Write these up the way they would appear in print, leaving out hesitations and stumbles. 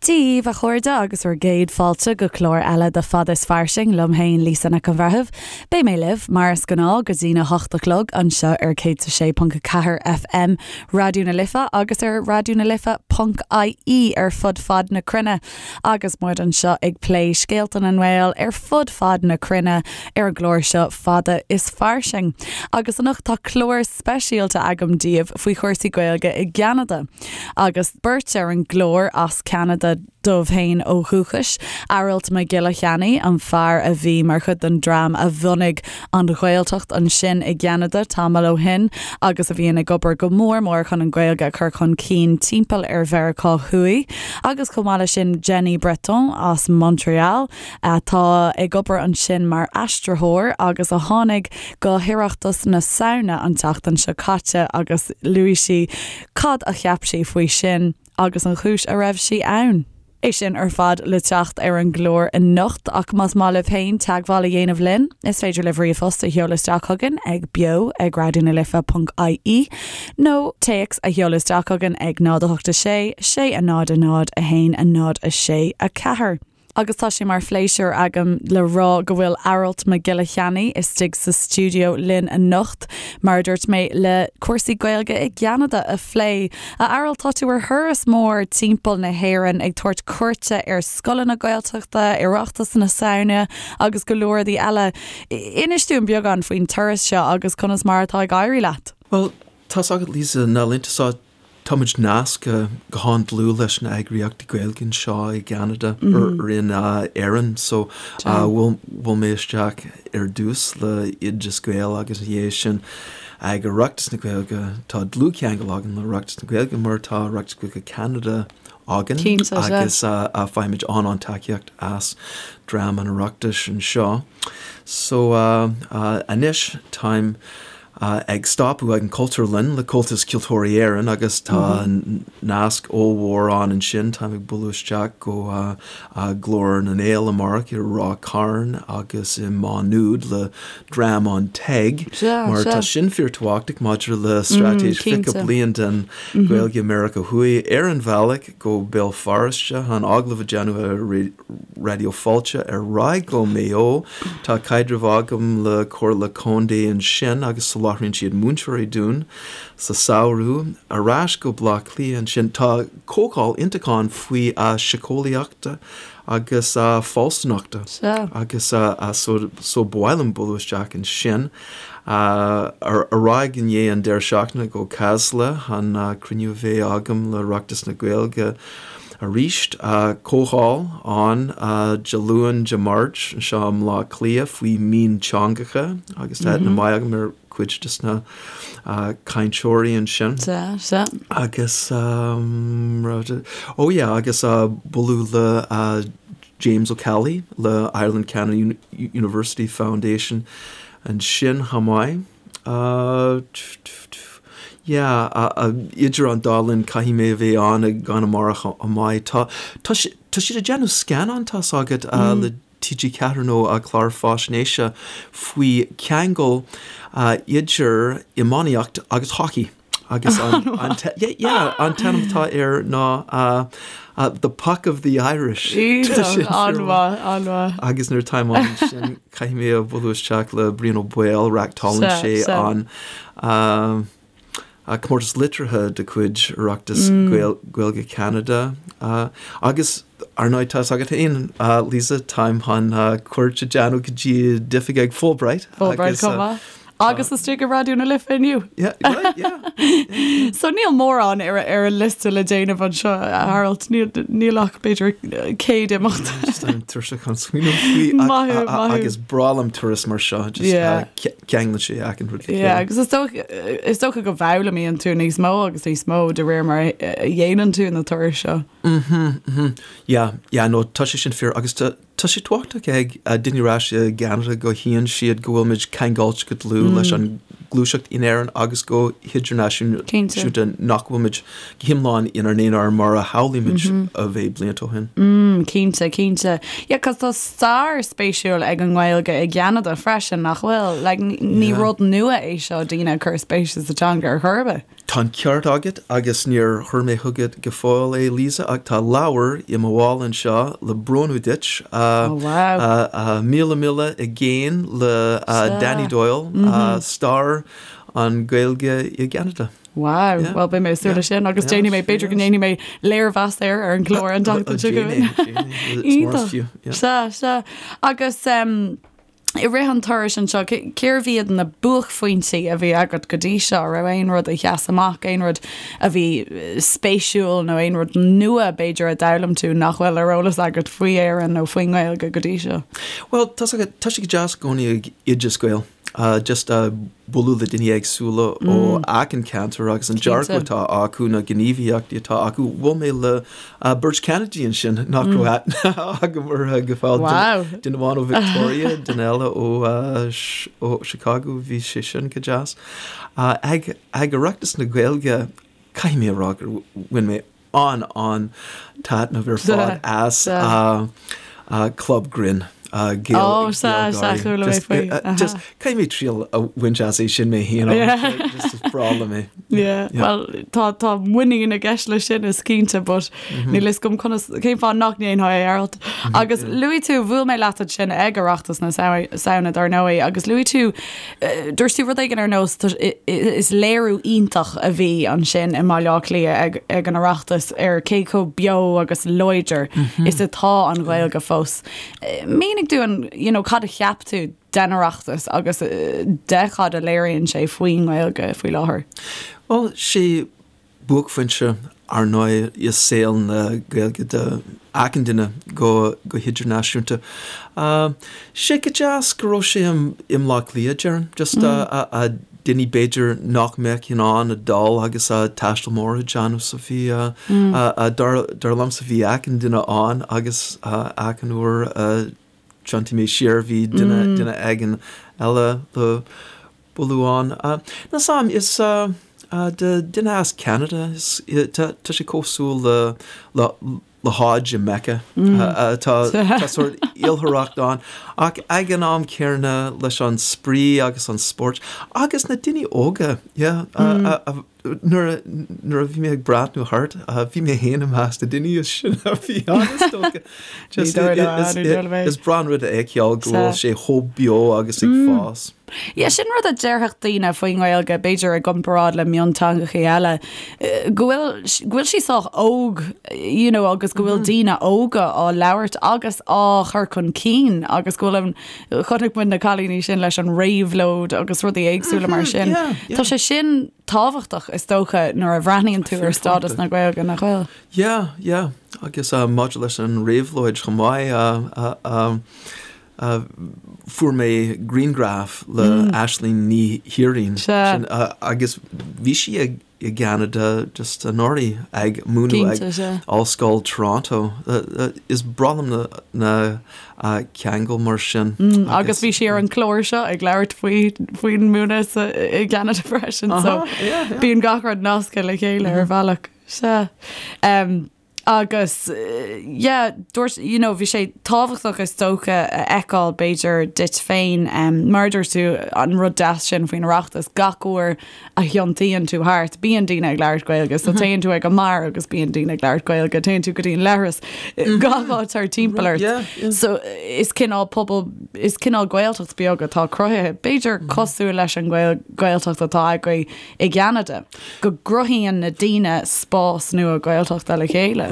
Dia dhaoibh, a chairde, agus bhur gcéad fáilte go clár eile de Fada is Fairsing liom féin, Lisa Nic an Bhreithimh. Beidh mé libh, mar is gnáth, go dtína hocht a chlog anseo ar 106.4 FM Raidió na Life agus ar raidionalife.ie ar fud fad na cruinne. Agus muid anseo ag plé scéalta na nGael ar fud fad na cruinne ar an gclár seo Fada is Fairsing. Agus anocht tá clár speisialta agam daoibh faoi chúrsaí Gaeilge i gCeanada. Agus beirt ar an gclár as Ceanada dóibh féin ó dhúchas, Aralt Mac Giolla Cheannaigh, an fear a bhí mar chuid den dream a bhunaigh an Ghaeltacht ansin i gCeanada tamall ó shin agus a bhíonn ag obair go mór mór chun an Ghaeilge a chur chun cinn timpeall ar Mheiriceá Thuaidh, agus chomh maith leis sin Jenny Breton as Montreal atá ag obair ansin mar aistritheoir agus a tháinig go hOireachtas na Samhna an tseachtain seo caite agus luaigh sí Cad a cheap sí faoi sin agus an chúis a raibh sí ann? É sin ar fad le teacht ar an gclár anocht ach más maith libh féin teagmháil a dhéanamh linn, is féidir libh ríomhphost a sheoladh isteach chugainn ag beo ag raidionalife.ie nó téacs a sheoladh isteach chugainn ag 0 8 6 6 0 0 1 0 6 4. Agus tá sé mar phléisiúr agam le rá go bhfuil Aralt Mac Giolla Cheannaigh istigh sa stiúideo linn anocht, mar a dúirt mé, le cúrsaí Gaeilge i gCeanada a phlé. A Aralt, tá tú ar thuras mór timpeall na hÉireann ag tabhairt cuairte ar scoileanna Gaeltachta, Oireachtas na Samhna agus go leor rudaí eile. Inis dúinn beagán faoin turas seo agus conas mar atá ag éirí leat. Bhuel, tá's agat Lisa, na laethanta seo Táimid nasctha go han-dlúth leis na eagraíochtaí Gaeilge anseo i gCeanada or in Éirinn so bhuail mé isteach ar dtús le Oideas Gael agus ina dhiaidh sin ag Oireachtas na Gaeilge. Tá dlúthcheangal againn le Oireachtas na Gaeilge mar tá Oireachtas Gaeilge Ceanada againn agus faighimid an-an-tacaíocht as dream an Oireachtais anseo. So anois táim ag stopadh ag an Chultúrlann le Comhaltas Ceoltóirí Éireann agus tá nasc ollmhór ann ansin. Táim ag bualadh isteach go Glór na nGael amárach i Ráth Cairn agus i Má Nuad le dream an TEG mar tá sin fíorthábhachtach maidir le straitéis 20 bliain den Ghaeilge i Meiriceá Thuaidh. Ar an bhealach go Béal Feirste, chun agallamh a dhéanamh ar Raidió Fáilte ar aghaidh go Maigh Eo. Tá caidreamh agam le Comhairle Contae ansin agus soláthraíonn siad múinteoirí dúinn sa samhradh. Ar ais go Baile Átha Cliath ansin. Tá comhdháil iontach ann faoi síceolaíochta agus fealsúnachta agus so ba mhaith liom bualadh isteach ansin. Ar aghaidh i ndiaidh an deireadh seachtaine go Casla chun cruinniú a bheith agam le Oireachtas na Gaeilge arís. Comhdháil ann Dé Luain, Dé Máirt anseo i mBleá Cliath faoi mhionteangacha agus tá aithne maith agam ar chuid de na cainteoirí ansin. Sea, sea. Agus, oh yeah, agus bualadh le James Ó Ceallaigh le Ireland Canada University Foundation ansin chomh maith. Yeah, idir an dá linn caithfidh mé a bheith ann i gConamara chomh maith. Tá, tá tá siad ag déanamh scannán, tá's agat, le TG4 nó clár faisnéise faoi cheangal idir iománaíocht agus hockey. Agus an, an, yeah, yeah, an t-ainm atá air ná The Puck of the Irish. Iontach, an-mhaith, an-mhaith. Agus nuair atáim ansin caithfidh mé a bhualadh isteach le Brian Ó Baoill, reachtálann sé an comórtas liteartha de chuid Oireachtas Gaeilge Cheanada. Agus ar ndóigh tá's agat féin, Lisa, táim chun cuairt a dhéanamh go dtí d'oifig ag Fulbright. Fulbright chomh maith. Agus istigh i Raidió na Life inniu. Yeah, right, yeah. So níl mórán ar ar an liosta le déanamh anseo, a Aralt, níl níl ach b'fhéidir 100 imeacht. Just táim tuirseach chun smaoineamh faoi ach- Maith thú, maith thú. agus breá liom turas mar seo, just Yeah. ceanglann sé achan rud le Yeah, chéile. agus is dócha is dócha go bhfoghlaimíonn tú níos mó agus níos mó de réir mar a a dhéanann tú na turais seo. Mhm, mhm. Yeah, yeah, no, tá sé sin fíor agus tá Tá sé tábhachtach ag daoine ar ais i gCeanada go thuigeann siad go bhfuil muid ceangailte go dlúth leis an gluaiseacht in Éirinn agus go hidirnáisiúnta, nach bhfuil muid go hiomlán inár n-aonar mar a shamhlaigh muid a bheith blianta ó shin. Cinnte, cinnte. Yeah, 'cause tá stair spéisiúil ag an nGaeilge i gCeanada freisin, nach bhfuil? Like, ní rud nua é seo, daoine ag cur spéise sa teanga ar chor ar bith. Tá an ceart agat agus níor chuir mé chugat go fóill é, Lisa, ach tá leabhar i mo mhála anseo le bronnadh duit, Oh, wow. 'Míle Míle i gCéin' le Danny Doyle, stair an Ghaeilge i gCeanada. Wow, bhuel beidh mé ag súil leis sin agus déanfaidh mé, b'fhéidir go ndéanfaidh mé léirmheas air ar an gclár an tseachtain seo chugainn. Iontach. Sea, sea. Agus i rith an turais anseo, cérbh iad na buaicphointí a bhí agat go dtí seo? Raibh aon rud a sheas amach, aon rud a bhí spéisiúil nó aon rud nua b'fhéidir a d'fhoghlaim tú nach bhfuil ar eolas agat faoi Éirinn nó faoin nGaeilge go dtí seo? Bhuel, tá sé go deas i gcónaí ag Oideas Gael. Just bualadh le daoine éagsúla ó achan ceantar agus an dearcadh atá acu, na gníomhaíochtaí atá acu. Bhuail mé le beirt Cheanadaigh ansin nach raibh aithne agam orthu go fóill. Duine amháin ó Victoria, duine eile ó Chicago, bhí sé sin go deas. Ag Oireachtas na Gaeilge, caithfidh mé a rá gur bhain mé an-an-taitneamh ar fad as Club Grinn. Ó, sea, sea, chuala mé faoi. Just, caithfidh mé triail a bhaint as é sin mé féin, just is breá liom é. Yeah, well, tá, tá muinín i gceist leis sin is cinnte, but níl fhios agam conas, cén fáth nach ndéanfá é, Aralt. Agus luaigh tú, bhuail mé leat ansin ag Oireachtas na Samhna, dar ndóigh, agus luaigh tú Dúirt tú rud éigin ar nós, is léiriú iontach a bhí ansin i mBaile Átha Cliath ag an Oireachtas ar cé chomh beo agus láidir is atá an Ghaeilge fós. Mínigh dúinn, you know, cad a cheap tú den Oireachtas agus de cad a léiríonn sé faoin nGaeilge faoi láthair? Bhuel, sé buaicphointe, ar ndóigh, i saol na Gaeilge do achan duine go hidirnáisiúnta. Sé go deas go raibh sé i mBleá Cliath, déarfainn, just daoine b'fhéidir nach mbeadh in ann a dul agus taisteal mór a dhéanamh so bhí, dar liomsa bhí achan duine ann agus achan uair a thiontaigh mé siar bhí duine duine éigin eile le bualadh ann. Níl 's a'm, is do duine as Ceanada, tá sé cosúil le le Hajj i Mecca. Tá tá sórt oilithreacht ann ach ag an am céanna leis an spraoi agus an spórt agus na daoine óga, yeah, Nuair a nuair a bhí mé ag breathnú thart, bhí mé féin i measc na daoine is sine a bhí ann, is dócha. Just is breá an rud a fheiceáil go bhfuil sé chomh beo agus ag fás. Yeah, sin rud a déarfadh daoine faoin nGaeilge, b'fhéidir i gcomparáid le mionteangacha eile, go bhfuil go bhfuil sí sách óg, you know, agus go bhfuil daoine óga á labhairt agus á chur chun cinn agus go bhfuil an Chonaic muid na cailíní sin leis an réabhlóid agus rudaí éagsúla mar sin. Tá sé sin tábhachtach is dócha nuair a bhreathnaíonn tú ar stádas na Gaeilge, nach bhfuil? Yeah, yeah. Agus maidir leis an réabhlóid chomh maith, fuair mé grianghraf le Aisling Ní Thiaráin agus bhí sí ag i gCeanada just anuraidh ag múineadh ag Ollscoil Toronto. Is breá liom na ceangail mar sin. Agus bhí sí ar an chlár seo ag labhairt faoi faoin múineadh i gCeanada freisin so bíonn gach rud nasctha le chéile ar bhealach. Sea. Agus yeah, dúirt, you know, bhí sé tábhachtach is dócha a fheiceáil b'fhéidir duit féin, mar a dúirt tú, an rud deas sin faoin Oireachtas, gach uair a thiontaíonn tú thart, bíonn daoine ag labhairt Gaeilge, so téann tú ag an mbeár agus bíonn daoine ag labhairt Gaeilge, téann tú go dtí an leithreas, gach áit thart timpeall ort. So is cineál pobal, is cineál Gaeltacht beag atá cruthaithe, b'fhéidir cosúil leis an Ghaeltacht atá agaibh i gCeanada, go gcruthaíonn na daoine spás nua Gaeltachta le chéile.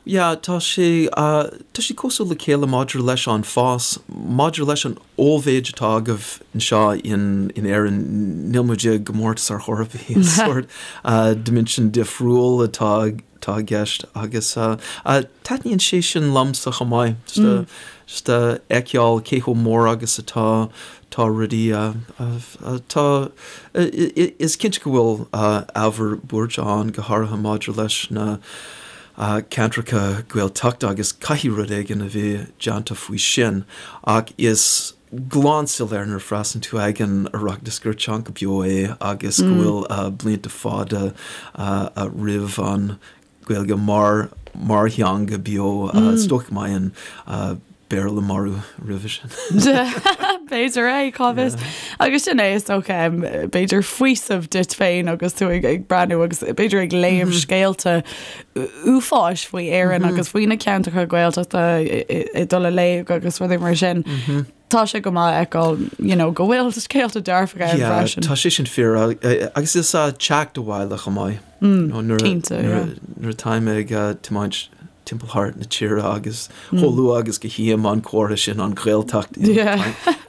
Yeah, tá sé, tá sé cosúil le chéile maidir leis an fás, maidir leis an ollmhéid atá agaibh anseo in Éirinn, níl muid i gcomórtas ar chor ar bith, is sórt dimension difriúil atá atá i gceist agus taitníonn sé sin liomsa chomh maith, just a fheiceáil cé chomh mór agus atá tá rudaí tá is cinnte go bhfuil ábhar buairte ann go háirithe maidir leis na ceantracha Gaeltachta agus caithfidh rud éigin a bheith déanta faoi sin ach is glan soiléir nuair a freastalaíonn tú ag an Oireachtas gur teanga beo é agus go bhfuil blianta fada roimh an Ghaeilge mar. mar theanga beo. Is dócha go mbeidh an Béarla marbh roimhe sin. B'fhéidir é, cá bhfios. Agus sin é is dócha, b'fhéidir faoiseamh duit féin agus tú ag breathnú agus b'fhéidir ag léamh scéalta uafáis faoi Éirinn agus faoi na ceantracha Gaeltachta ag dul i léig agus rudaí mar sin. Tá sé go maith a fheiceáil you know, go bhfuil scéalta dearfacha ann freisin. Tá sé sin fíor agus is teacht abhaile chomh maith. Cinnte, yeah. Nuair atáim ag tiomáint timpeall thart na tíre agus chomh luath agus go tchím an comhartha sin an Ghaeltacht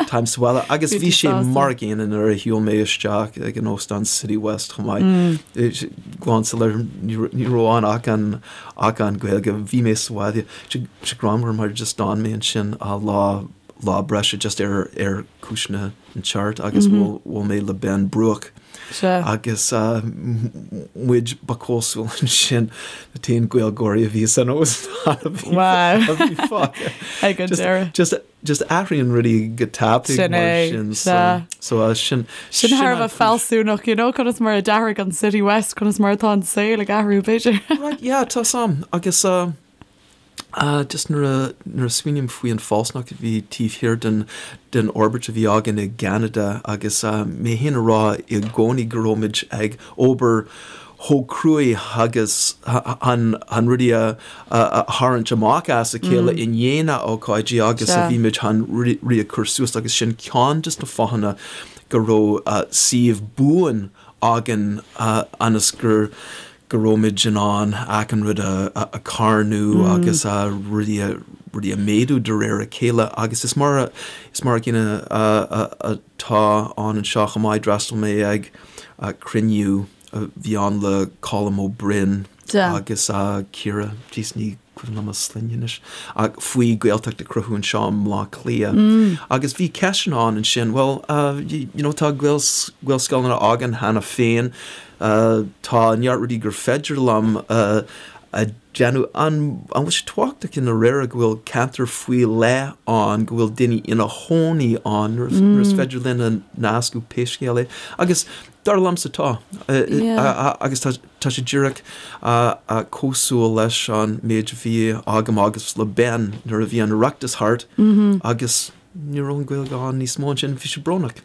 táim sa bhaile agus bhí sé mar a gcéanna nuair a shiúil mé isteach ag an óstán City West chomh maith. Glan soiléir ní raibh ann ach an ach an Ghaeilge bhí mé sa bhaile sé greannmhar mar just d'fhan mé ansin lá lá breise just ar ar cúiseanna an cheart agus bhuail mé le Ben Bruach. Agus muid ba cosúil ansin na t-aon Gaeilgeoirí a bhí san óstán a bhí fágtha. Ag an deireadh. Just just athraíonn rudaí go tapaidh Sin é, mar sin. So so sin Sin thar a bheith fealsúnach, you know, conas mar a d'athraigh an City West, conas mar atá an saol ag athrú, b'fhéidir. Right, yeah, tá sam. Agus Just nuair a nuair a smaoiním faoi an fealsúnacht a bhí taobh thiar den den fhorbairt a bhí againn i gCeanada agus mé féin a rá i gcónaí go raibh muid ag obair chomh cruaidh agus chun chun rudaí a a tharraingt amach as a chéile i ndiaidh na ócáidí agus a bhí muid chun rudaí a chur suas agus sin ceann de na fáthanna go raibh suíomh buan againn ionas gur go raibh muid in ann achan rud a charnadh agus rudaí a rudaí a méadú de réir a chéile agus is mar is mar a gcéanna atá ann anseo chomh maith. D'fhreastail mé ag cruinniú a bhí ann le Colm Ó Broin agus Ciara, jeez ní cuimhin liom a sloinne anois, ach faoi Gaeltacht a chruthú anseo i mBleá Cliath. Agus bhí ceisteanna ann ansin, bhuel, you know, tá Gaelscoileanna againn cheana féin, tá neart rudaí gur féidir liom a dhéanamh. An bhfuil sé tábhachtach i ndáiríre go bhfuil ceantar faoi leith ann, go bhfuil daoine ina chónaí ann nuair is féidir linn a nascadh pé scéal é? Agus dar liomsa tá. Agus tá. Tá sé díreach cosúil leis an méid a bhí agam agus le Ben nuair a bhí an Oireachtas thart agus ní raibh an Ghaeilge ann níos mó ansin, bhí sé brónach.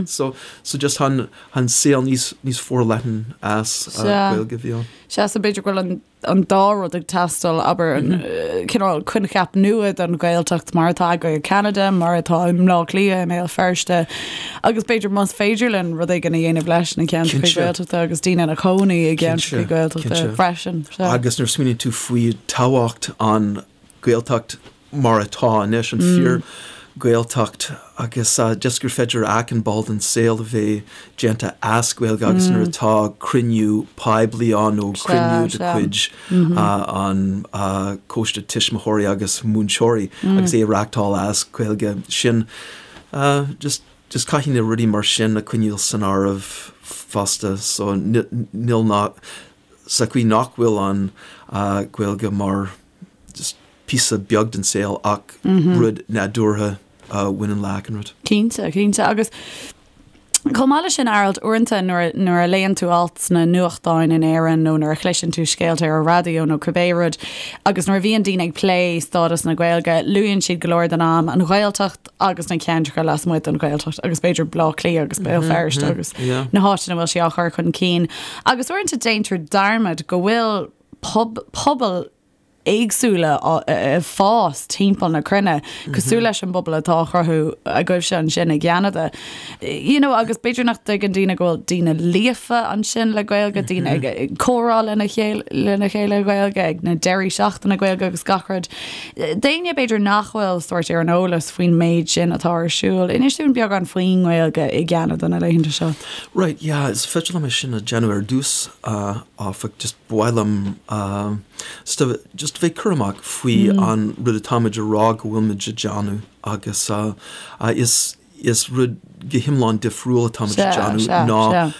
So so just an an saol níos níos forleathan as Gaeilge a bhí ann. Sea, so b'fhéidir go bhfuil an an dá rud ag teastáil, abair, an cineál coincheap nua don Ghaeltacht mar atá agaibh i gCeanada, mar atá i mBleá Cliath, i mBéal Feirste, agus b'fhéidir más féidir linn rud éigin a dhéanamh leis na ceantracha Gaeltachta agus daoine ina cónaí i gceantracha Gaeltachta freisin. Agus nuair a smaoiníonn tú faoi tábhacht an Ghaeltacht mar atá anois, an fíor Ghaeltacht agus just gur féidir achan ball den saol a bheith déanta as Gaeilge agus nuair atá cruinniú poiblí ann nó cruinniú de chuid an Coiste Tuismitheoirí agus Múinteoirí agus é a reachtáil as Gaeilge, sin just just caithfidh na rudaí mar sin a coinneáil san áireamh fosta so níl ná sa chaoi nach bhfuil an Ghaeilge mar just píosa beag den saol ach rud nádúrtha a bhaineann le achan rud. Cinnte, cinnte. Agus chomh maith leis sin, Aralt, uaireanta nuair, nuair a léann tú alt sna nuachtáin in Éirinn nó nuair a chloiseann tú scéalta ar an raidió nó cibé rud, agus nuair a bhíonn daoine ag plé stádas na Gaeilge, luann siad go leor den am an Ghaeltacht agus na ceantracha lasmuigh den Ghaeltacht agus b'fhéidir Baile Átha Cliath agus Béal Feirste agus na háiteanna a bhfuil sí á chur chun cinn. Agus uaireanta déantar dearmad go bhfuil pobail éagsúla ag fás timpeall na cruinne, cosúil leis an bpobal atá á chruthú agaibhse ansin i gCeanada. You know, agus b'fhéidir nach dtuigeann daoine go bhfuil daoine líofa ansin le Gaeilge, daoine ag ag comhrá lena chéile lena chéile Gaeilge, ag na deirí seachtaine Gaeilge agus gach rud. D'éinne b'fhéidir nach bhfuil sórt ar an eolas faoin méid sin atá ar siúl, inis dúinn beagán faoin nGaeilge i gCeanada na laethanta seo. Right, yeah, is féidir liom é sin a dhéanamh ar dtús, áfach, just ba mhaith liom just bheith cúramach faoi an rud atáimid a rá go bhfuilmid a déanamh agus is is rud go hiomlán difriúil atáimid a déanamh ná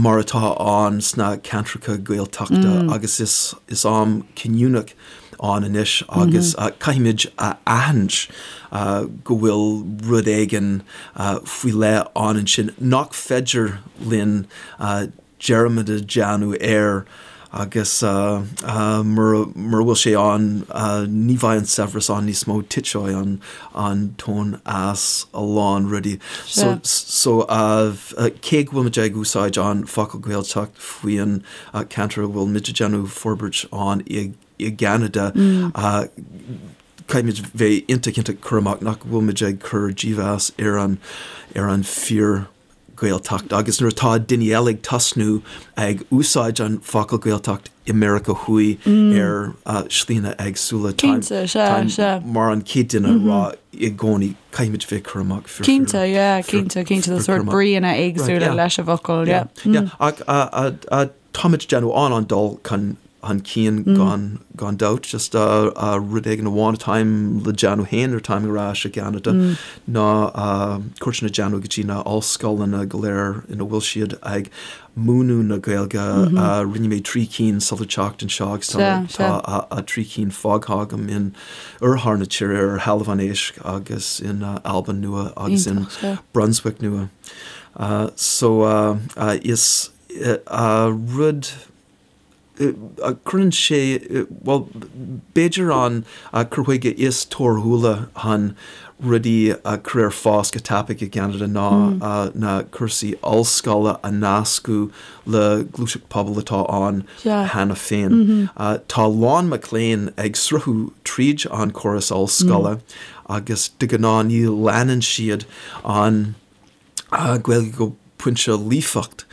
mar atá ann sna ceantracha Gaeltachta agus is is am cinniúnach ann anois agus caithfimid a aithint go bhfuil rud éigin faoi leith ann ansin nach féidir linn dearmad a dhéanamh air. Agus mura bhfuil sé ann, ní bheidh an saibhreas ann níos mó, titfidh an an tóin as a lán rudaí. So so cé go bhfuil muid ag úsáid an focal Gaeltacht faoin ceantar a bhfuil muid ag déanamh forbairt ann i gCeanada, caithfimid bheith iontach iontach cúramach nach bhfuil muid ag cur dímheas ar an ar an fíor Gaeltacht agus nuair atá daoine eile ag tosnú ag úsáid an focal Gaeltacht i Meiriceá Thuaidh ar slíanna éagsúla táim mar an chéad duine a rá i gcónaí caithfimid bheith cúramach fíor Cinnte, yeah, cinnte, cinnte, tá sórt bríonna éagsúla leis an bhfocal, yeah. Yeah, ach táimid ag déanamh an-an-dul chun chun cinn gan gan dabht. Just rud éigin amháin atáim le déanamh féin nuair atáim ar ais i gCeanada ná cuairteanna a déanamh go dtí na ollscoileanna go léir ina bhfuil siad ag múineadh na Gaeilge. Rinne mé 3 cinn sular teacht anseo agus tá tá 3 cinn fágtha agam in oirthear na tíre ar Thalamh an Éisc agus in Albain Nua agus in Brunswick Nua. So is rud cuireann sé, bhuel, b'fhéidir an cur chuige is torthúla chun rudaí a chur ar fás go tapaidh i gCeanada ná na cúrsaí ollscoile a nascadh le gluaiseacht pobail atá ann cheana féin. Tá a lán mac léinn ag sruthú tríd an córas ollscoile agus de ghnáth ní leanann siad an Gaeilge go pointe líofacht.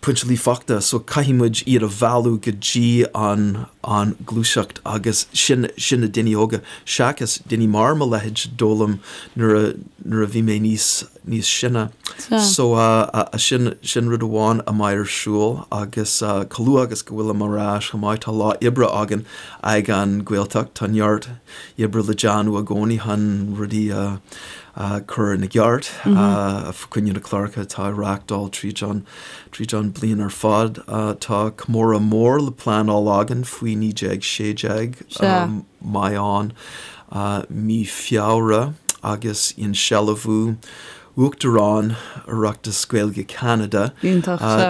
Pointe líofachta, so caithfidh muid iad a mhealladh go dtí an an ghluaiseacht agus sin sin na daoine óga seachas daoine mar mo leithéid a d'fhoghlaim nuair a nuair a bhí mé níos níos sine. So sin sin rud amháin a mbeidh ar siúl agus chomh luath agus go bhfuilim ar ais chomh maith tá lá oibre againn ag an Ghaeltacht, tá neart oibre le déanamh i gcónaí chun rudaí a a chur ina gceart fá choinne na cláracha atá á reáchtáil tríd an tríd an bliain ar fad. Tá comóradh mór le pleanáil againn faoi 1916 a mbeidh ann mí Feabhra agus insealbhú Uachtarán Oireachtas Gaeilge Cheanada.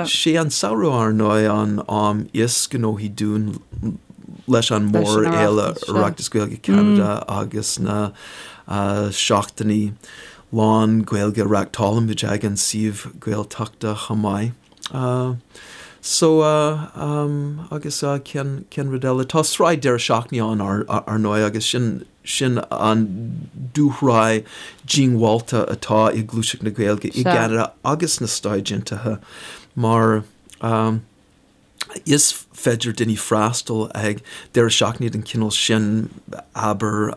Sé an samhradh ar ndóigh an am is gnóthaí dúinn leis an mórfhéile Oireachtas Gaeilge Cheanada agus na seachtainí lán Gaeilge a reáchtálaimid ag an suíomh Gaeltachta chomh maith. So agus cén cén rud eile? Tá sraith deireadh seachtaine ann ar ndóigh agus sin sin an dúshraith diongbháilte atá i gluaiseacht na Gaeilge i gCeanada agus sna Stáit Aontaithe mar Is féidir daoine freastal ag deireadh seachtaine den chineál sin, abair,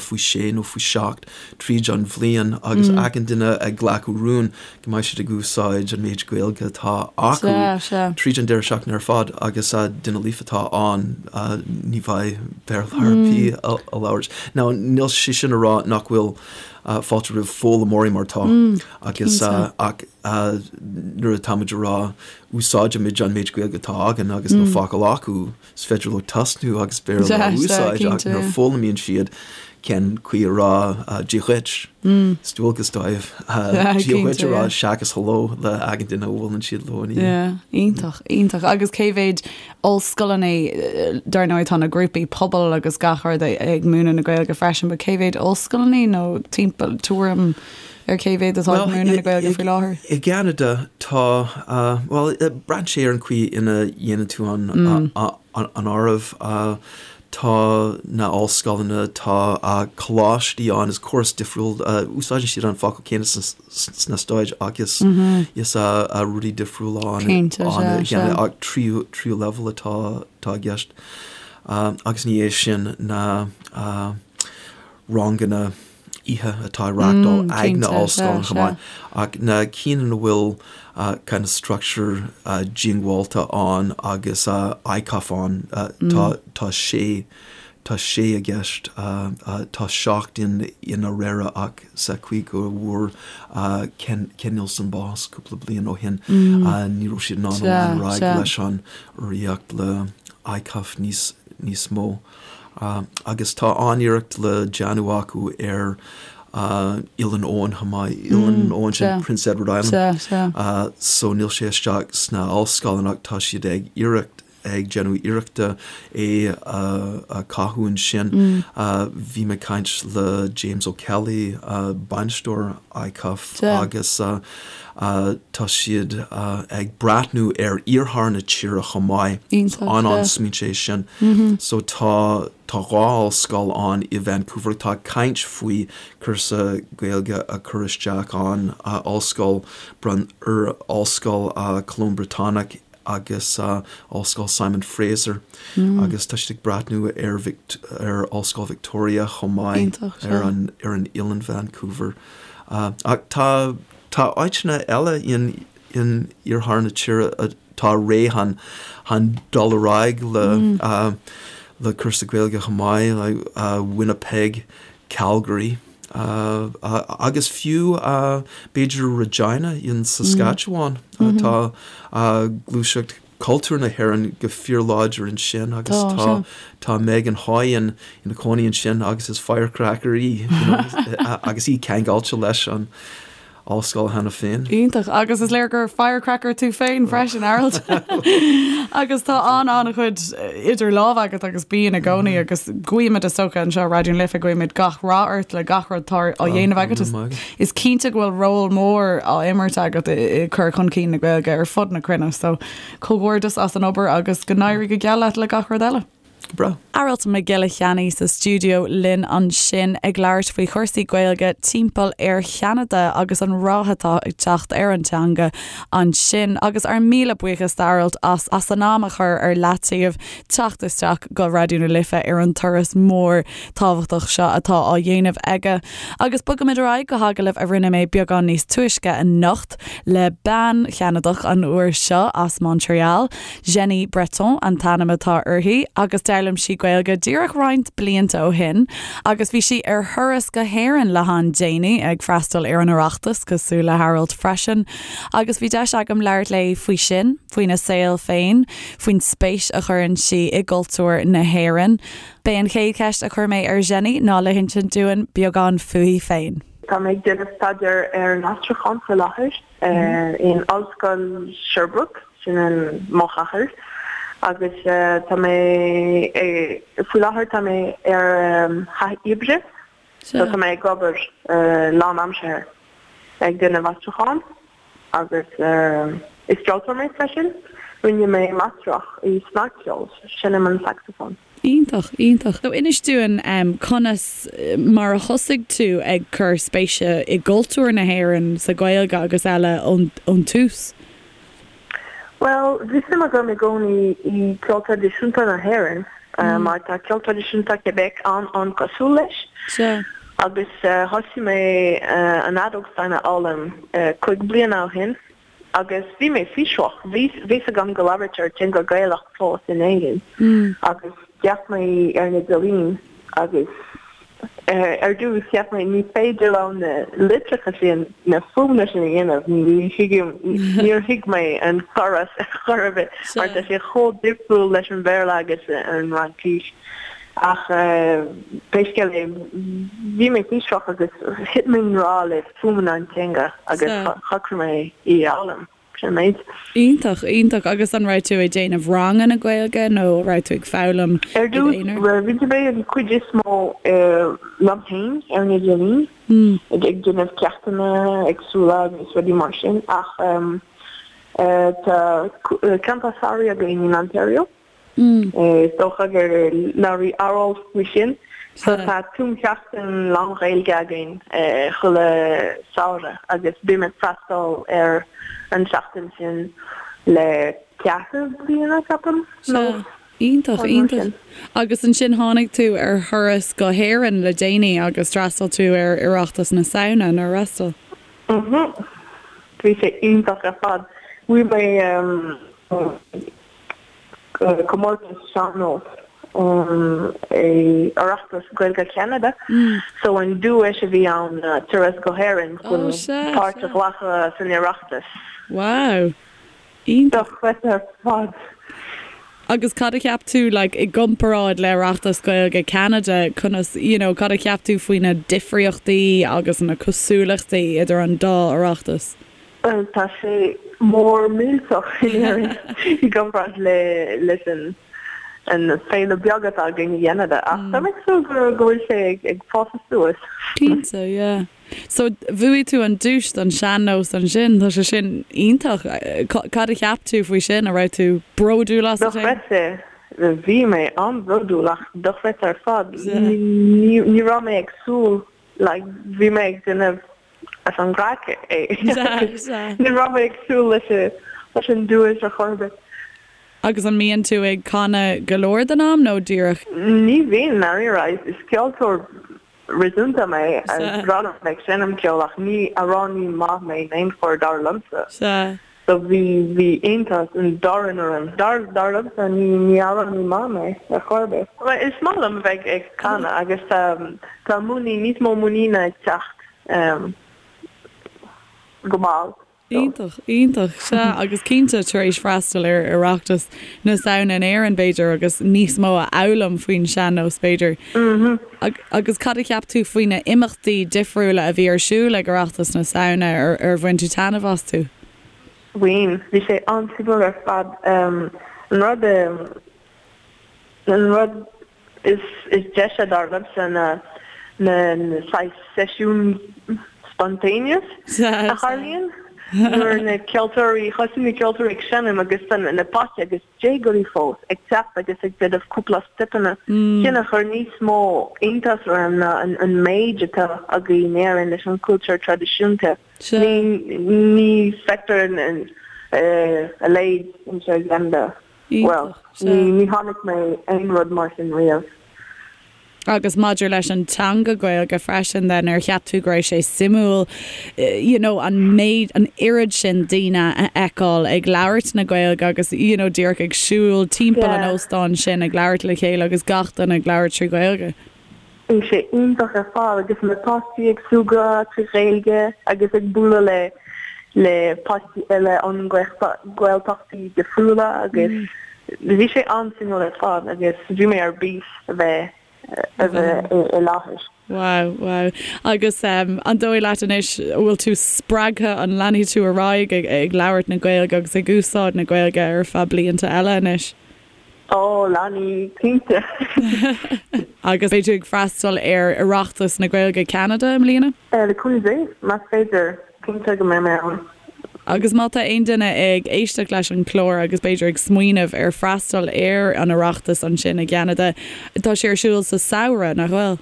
faoi shé nó faoi sheacht tríd an bhliain agus achan duine ag glacadh rún go mbeidh siad ag úsáid an méid Gaeilge atá acu tríd an deireadh seachtaine ar fad agus duine líofa atá ann ní bheidh Béarla ar bith á labhairt. Now níl sé sin a rá nach bhfuil fáilte roimh foghlaimeoirí mar tá agus ach nuair atáimid a rá úsáidimid an méid Gaeilge atá againn agus níl focal acu, is féidir leo tosnú agus Béarla a úsáid ach nuair a foghlaimíonn siad cén chaoi a rá Dia dhuit, is dualgas dóibh Dia dhuit a rá seachas hello le achan duine a bhuaileann siad leo ina dhiaidh. Iontach, iontach. Agus cé mhéid ollscoileanna, dar ndóigh tá na grúpaí pobail agus gach rud ag múineadh na Gaeilge freisin, but cé mhéid ollscoileanna nó timpeall, tuairim ar cé mhéad atá ag múineadh na Gaeilge faoi láthair? I gCeanada tá, bhuel, braitheann sé ar an chaoi ina dhéanann tú an an áireamh. Tá na ollscoileanna, tá coláistí ann, is córas difriúil, úsáideann siad an focal céanna sna Stáit ach is is rudaí difriúla ann i gCeanada ach tríú tríú leibhéal atá atá i gceist. Agus ní hé sin na ranganna oíche atá á reáchtáil ag na ollscoileanna chomh maith, ach na cinn ina bhfuil kind of structure diongbháilte ann agus ICAF ann, tá sé, tá sé i gceist, tá 7 in in Aurora ach sa chaoi go bhfuair Ken Neilson bás cúpla bliain ó shin, ní raibh siad in ann lean ar aghaidh leis an urraíocht le ICAF níos níos mó. Agus tá an-iarracht le déanamh acu ar Oileán Eoin chomh maith, Oileán Eoin sin Prince Edward Island. So níl sé isteach sna ollscoileanna ach tá siad ag iarracht, ag déanamh iarrachta é a chothú ansin. Bhí mé ag caint le James O'Kelly, bainisteoir ICUF agus tá siad ag breathnú ar iarthar na tíre chomh maith. An-an-smaointe é sin. So tá tá 2 ollscoil ann i Vancouver atá ag caint faoi cúrsa Gaeilge a chur isteach ann, Ollscoil Ollscoil Cholóim Briotanach agus Ollscoil Simon Fraser agus tá siad ag breathnú ar ar Ollscoil Victoria chomh maith ar an ar an oileán Vancouver. Ach tá tá áiteanna eile in in iarthar na tíre atá réidh chun chun dul ar aghaidh le le cúrsa Gaeilge chomh maith, like Winnipeg, Calgary agus fiú b'fhéidir Regina in Saskatchewan. Tá gluaiseacht cultúr na hÉireann go fíorláidir ansin agus tá tá Megan Hoy ina cónaí ansin agus is firecracker í agus í ceangailte leis an ollscoil cheana féin. Iontach. Agus is léir gur firecracker tú féin freisin, Aralt. Agus tá an-an-chuid idir lámha agat agus bíonn i gcónaí agus guímid is dócha anseo i Raidió na Life, guímid gach rath ort le gach rud atá á dhéanamh agat. Is cinnte go bhfuil ról mór á imirt agat i cur chun cinn na Gaeilge ar fud na cruinne so comhghairdeas as an obair agus go n-éirí go geal leat le gach rud eile. Go breá. Aralt Mac Giolla Cheannaigh sa stiúideo linn ansin ag labhairt faoi chúrsaí Gaeilge timpeall ar Cheanada agus an rath atá ag teacht ar an teanga ansin. Agus ár míle buíochas d'Aralt as as an am a chur ar leataobh teacht isteach go Raidió na Life ar an turas mór tábhachtach seo atá á dhéanamh aige. Agus bogaimid ar aghaidh go hagallamh a rinne mé beagán níos túisce anocht le bean Cheanadach an uair seo as Montreal. Jenny Breton an t-ainm atá uirthi agus d'fhoghlaim sí Gaeilge díreach roinnt blianta ó shin agus bhí sí ar thuras go hÉirinn le han-déanaí ag freastal ar an Oireachtas cosúil le hAralt freisin agus bhí deis agam labhairt léi faoi sin, faoina saol féin, faoin spéis a chuireann sí i gcultúr na hÉireann. B'é an chéad cheist a chuir mé ar Jenny ná le hinsint dúinn beagán fúithi féin. Tá mé ag déanamh staidéar ar an aistriúchán faoi láthair. in Ollscoil Sherbrooke, sin in mo chathair, agus tá mé, faoi láthair tá mé ar thaithí oibre, so tá mé ag obair lánaimseartha ag déanamh aistriúchán agus is ceoltóir mé freisin, rinne mé máistreacht i snagcheol, seinnim an saxophone. Iontach, iontach. So inis dúinn conas mar a thosaigh tú ag cur spéise i gcultúr na hÉireann, sa Ghaeilge agus eile ón tús? Bhuel, bhí suim agam i gcónaí i gceol traidisiúnta na hÉireann mar tá ceol traidisiúnta Québec an-an-cosúil leis. Sea. Agus thosaigh mé an fheadóg stáin a fhoghlaim 5 bliana ó shin. Agus bhí mé fiosrach, bhí fhios agam go labhraítear teanga Gaelach fós in Éirinn agus d'fhéach mé ar an idirlíon agus ar dtús cheap mé ní féidir liom na litreacha sin, na fuaimeanna sin a dhéanamh, ní thuigim, níor thuig mé an córas ar chor ar bith mar tá sé chomh difriúil leis an Bhéarla agus an Fhraincis. Ach pé scéal é, bhí mé fiosrach agus thit mé i ngrá le fuaimeanna an teanga agus shocraigh mé í a fhoghlaim. Sin an méid. Iontach, iontach. Agus an raibh tú ag déanamh ranganna Gaeilge nó an raibh tú ag foghlaim Ar i dtús, d'aonar? rinne mé an chuid is mó liom féin ar an idirlíon, ag déanamh ceachtanna éagsúla agus rudaí mar sin ach tá campa samhraidh againn in Ontario. Is dócha gur labhair Aralt faoi sin. So tá tumsheachtain lán-Ghaeilge againn chuile samhradh agus bím ag freastal ar an seachtain sin le ceathrú bliana, ceapaim, nó Iontach, iontach. Agus ansin tháinig tú ar thuras go hÉirinn le déanaí agus d'fhreastail tú ar Oireachtas na Samhna, nár fhreastail? Mhm. Bhí sé iontach ar fad. Bhuaigh mé comórtas sean-nós i Oireachtas Gaeilge Cheanada so an duais a bhí ann ná turas go hÉirinn chun páirt a ghlacadh san Oireachtas. Wow! Iontach. Dochreidte ar fad. Agus cad a cheap tú, like, i gcomparáid le Oireachtas Gaeilge Ceanada, conas, you know, cad a cheap tú faoi na difríochtaí agus na cosúlachtaí idir an dá Oireachtas? Bhuel, tá sé mór millteach in Éirinn i gcomparáid le leis an an féile beag atá againn i gCeanada, ach tá mé ag súil go go bhfuil sé ag ag fás suas. Cinnte, yeah. So, bhuaigh tú an duais don sean-nós ansin, tá sé sin iontach. Cad a cheap tú faoi sin? An raibh tú bródúil asat féin? Dochreidte. Bhí mé an-bhródúil ach dochreidte ar fad. Ní raibh mé ag súil, like, bhí mé ag déanamh as an gcraic é. Ní raibh mé ag súil leis an duais ar chor ar bith. Agus an mbíonn tú ag canadh go leor den am nó díreach? Ní bhíonn, ndáiríre. Is ceoltóir réasúnta mé, is breá liom ag seinm ceoil ach ní amhránaí maith mé in aon chor dar liomsa. Sea. So bhí, bhí iontas an domhain orm. Dar, dar liomsa ní, ní amhránaí maith mé ar chor ar bith. Bhuel is maith liom a bheith ag canadh agus tá, tá muinín, níos mó muiníne ag teacht go mall. Iontach, iontach. Sea, agus cinnte, tar éis freastal ar Oireachtas na Samhna in Éirinn, b'fhéidir, agus níos mó a fhoghlaim faoin sean-nós, b'fhéidir. Agus cad a cheap tú faoi na imeachtaí difriúla a bhí ar siúl ag Oireachtas na Samhna? Ar bhain tú taitneamh astu? Bhain. Bhí sé an-suimiúil ar fad. An rud, an rud Is deise dar liomsa na na saghas seisiúin spontaneous a tharlaíonn nuair na ceoltóirí, thosaigh na ceoltóirí ag seinm agus na páistí agus déagóirí fós ag teacht agus ag déanamh cúpla steipeanna. Sin a chuir níos mó iontas orm ná an méid atá againn in Éirinn leis an cultúr traidisiúnta. Ní feictear a leithéid anseo i gCeanada. Bhuel, ní chonaic mé aon rud mar sin riamh. Agus maidir leis an teanga Gaeilge freisin then, ar cheap tú go raibh sé suimiúil you know an méid, an oiread sin daoine a fheiceáil ag labhairt na Gaeilge agus you know díreach ag siúl timpeall an óstáin sin ag labhairt le chéile agus gach duine ag labhairt trí Ghaeilge? Bhí sé iontach ar fad agus na páistí ag súgradh trí Ghaeilge agus ag bualadh le le páistí eile ón nGaeltachtaí difriúla agus bhí sé an-suimiúil ar fad agus bhí mé ar bís a bheith a bheith i láthair. Wow, wow. Agus an dóigh leat anois, an bhfuil tú spreagtha, an leanfaidh tú ar aghaidh ag ag labhairt na Gaeilge agus ag úsáid na Gaeilge ar feadh blianta eile anois? Ó, leanfaidh, cinnte. Agus beidh tú ag freastal ar Oireachtas na Gaeilge Ceanada i mbliana? Le cúnamh Dé, más féidir, cinnte go mbeidh mé ann. Agus má tá aon duine ag éisteacht leis an chlár agus b'fhéidir ag smaoineamh ar freastal ar an Oireachtas ansin i gCeanada, tá sé ar siúl sa samhradh, nach bhfuil?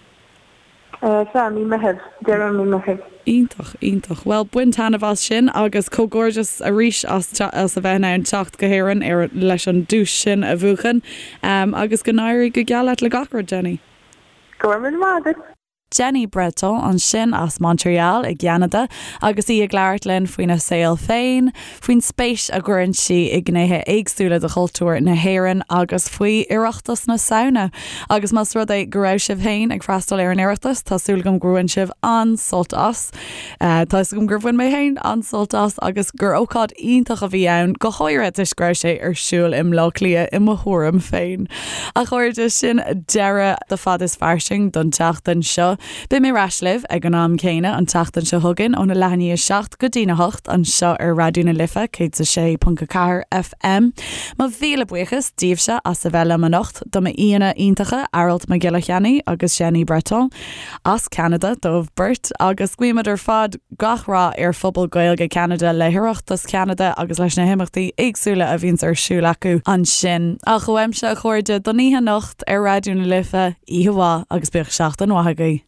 Sea, mí Meitheamh, deireadh mí Meitheamh. Iontach, iontach. Bhuel, bain taitneamh as sin agus comhghairdeas arís as as a bheith in ann teacht go hÉirinn ar leis an duais sin a bhuachan. Agus go n-éirí go geal leat le gach rud, Jenny. Go raibh míle maith agat. Jenny Breton ansin as Montreal i gCeanada agus í ag labhairt linn faoina saol féin, faoin spéis a gcuireann sí i ngnéithe éagsúla de chultúr na hÉireann agus faoi Oireachtas na Samhna. Agus más rud é go raibh sibh féin ag freastal ar an Oireachtas, tá súil agam gur bhain sibh an-sult as. Tá fhios agam gur bhain mé féin an-sult as agus gur ócáid iontach a bhí ann, go háirithe toisc go raibh sé ar siúl i mBleá Cliath i mo thuairim féin. A chairde, sin deireadh de Fad is Fairsing don tseachtain seo. Beidh mé ar ais libh ag an am céanna an tseachtain seo chugainn óna leath i ndiaidh 7 go dtína 8 anseo ar Raidió na Life 106.4 FM. Mo mhíle buíochas daoibhse as a bheith liom anocht, do m'aíonna iontacha Aralt Mac Giolla Cheannaigh agus Jenny Breton as Ceanada dóibh beirt agus guímid ar fad gach rath ar phobal Gaeilge Ceanada le hOireachtas Cheanada agus leis na himeachtaí éagsúla a bhíonns ar siúl acu ansin. Ach uaimse a chairde don oíche anocht ar Raidió na Life, oíche mhaith agus bíodh seachtain mhaith agaibh.